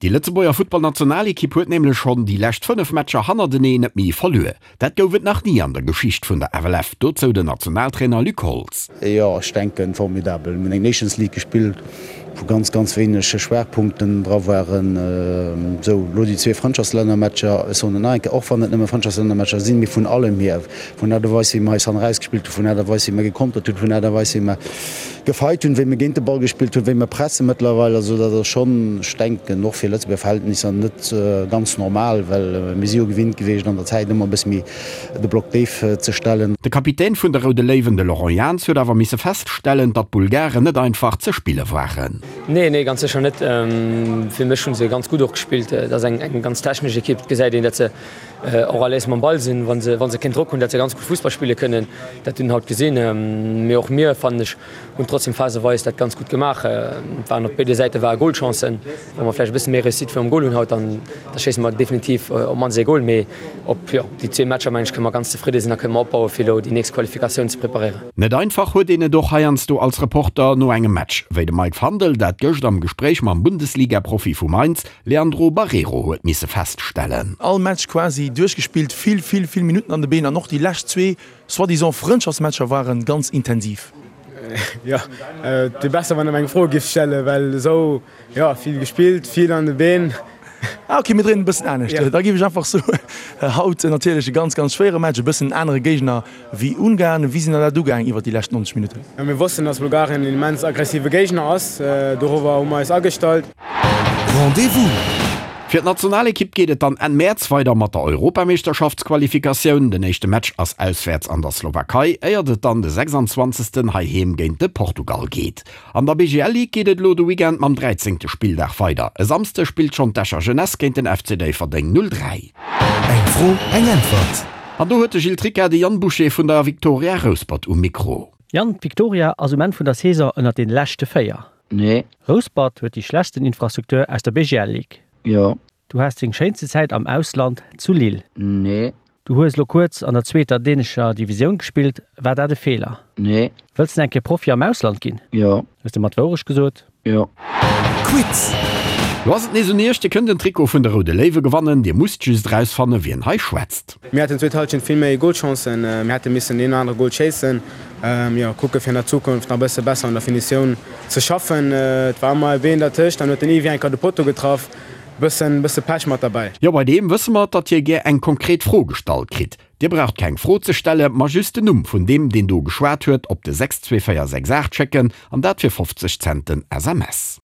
Déi Lëtzebuerger Futtballnationalekipp huet nämlech schonn déi lescht 5 Matcher hannerteneen net méi verluer. Dat gouf et nach ni an der Geschicht vun der FLF. Dozou den Nationaltrainer Luc Holtz. Jo, ech denken formidabel. Mir hunn eng Nations League gespillt, wou ganz, ganz wéineg Schwaachpunkten dra waren. Esou, elo déi zwee Frëndschaftslännermatcher, ech soen et nach eng Kéier, och wann et nëmme Frëndschaftslännermatcher sinn, mee vun allem hier, vun der Aart a Weis wéi mer eis hannen erausgespillt hunn, vun der Aart a Weis wéi mer gekontert hunn, vun der Aart a Weis wéi mer Gefeit hunn, wéi mir géint de Ball gespillt hunn, wéi mir pressen mëttlerweil. Also dat ass schonn, ech denken, och fir Lëtzebuerger Verhältnisser net ganz normal, well mir si jo gewinnt gewiescht an der Zäit ëmmer e bësse méi de Block déif ze stellen. De Kapitän vun de Roude Léiwen, de Laurent Jans, huet awer misse feststellen, datt d'Bulgaren net einfach ze spille waren. Nee, nee, ganz sécher net. Fir mech hu se ganz gutt och gespillt. Dat ass eng ganz technesch Ekipp. Et gesäit een, datt se och à l'aise mam Ball sinn, wa se, wa se keen Drock hunn, datt se ganz gutt Fussball spille kënnen. Dat hunn haut gesinn. Mee och mir, fannen ech, hunn trotzdem phaseweis dat ganz gutt gemaach. Et waren op béide Säite ware Golchancen. Wa mer vläicht e bësse méi Réussite virum Gol hunn haut, dann da schéisse mer definitiv op d'mannst ee Gol. Mee op, jo, déi zwee Matcher, mengen ech, kënne mer ganz zefridde sinn a kënne mer opbaue fir elo déi nächst Qualifikatioun ze preparéieren. Net einfach huet een et och heiansdo als Reporter no engem Match, wéi de Mike Fandel dat gëscht am Gespréich mam Bundesliga-Profi vu Mainz, Leandro Barreiro, huet misse feststellen. All Match quasi duerchgespillt, vill, vill, vill Minutten an de Been an och déi lescht zwee soi-disant Frëndschaftsmatcher waren ganz intensiv. Jo, et wier besser wann der mer eng Fro giff stellen, well esou, jo, vill gespillt, vill an de Been. Ah ok, mir dréinen e bëssen anescht. Da géif ech einfach soen, haut natierlech e ganz, ganz schwéiere Match, e bëssen en anere Géigner wéi Ungarn. Wéi sinn der dat ugaang iwwer déi lescht 90 Minutten? Mir wossten, dass Bulgarien en immens aggressive Géigner ass, dorobber hu mer eis agestallt. Rendez-vous! Fir d'Nationalekipp geet et dann Enn Mäerz weider mat der Europameeschterschaftsqualifikatioun. Den éischte Match ass auswäerts an der Slowakei, éiert et dann de 26. heiheem géint de Portugal geet. An der BGL Ligue geet et elo de Weekend mam 13. Spilldag weider. E Samsde spillt schonn d'Escher Jeunesse géint den FC Déifferdeng 03. Eng Fro, eng Äntwert! An do huet de Gilles Tricca de Yann Boucher vun der Victoria Rouspert um Mikro. Yann, d'Victoria ass um Enn vun der Saison ënnert den leschte 4. Nee. Rouspert huet déi schlechtsten Infrastruktur aus der BGL Ligue. Jo. Du haas deng schéinste Zäit am Ausland zu Lille. Nee. Du hues lo kuerz an der zweeter dänescher Divisioun gespillt, war dat e Feeler? Nee. Wëlls de eng Kéier Profi am Ausland ginn? Jo. Hues de mer d'Wourecht gesot? Jo. Quiz! Lo ass et nees un iech, Dir kënnt en Trikot vun de Roude Léiwe gewannen. Dir musst just erausfanne wien hei schwätzt. Mir haten zweet Halschent vill méi Golchancen, mir hätte missen deen anere Gol schéissen. Jo, kucke fir an der Zukunft nach e bësse besser un der Finitioun ze schaffen. Et war ëmmer e Been dertëscht, dann huet den Yves Enker de Potto getraff. Bëssen bësse Pech mat derbäi. Jo, bei deem wësse mer, datt hie gär eng konkret Fro gestallt kritt. Dir braucht keng Fro ze stelle, ma just den Numm vun deem, deen do geschwat huet, op de 62468 schécken, an dat fir 50 Cent den SMS.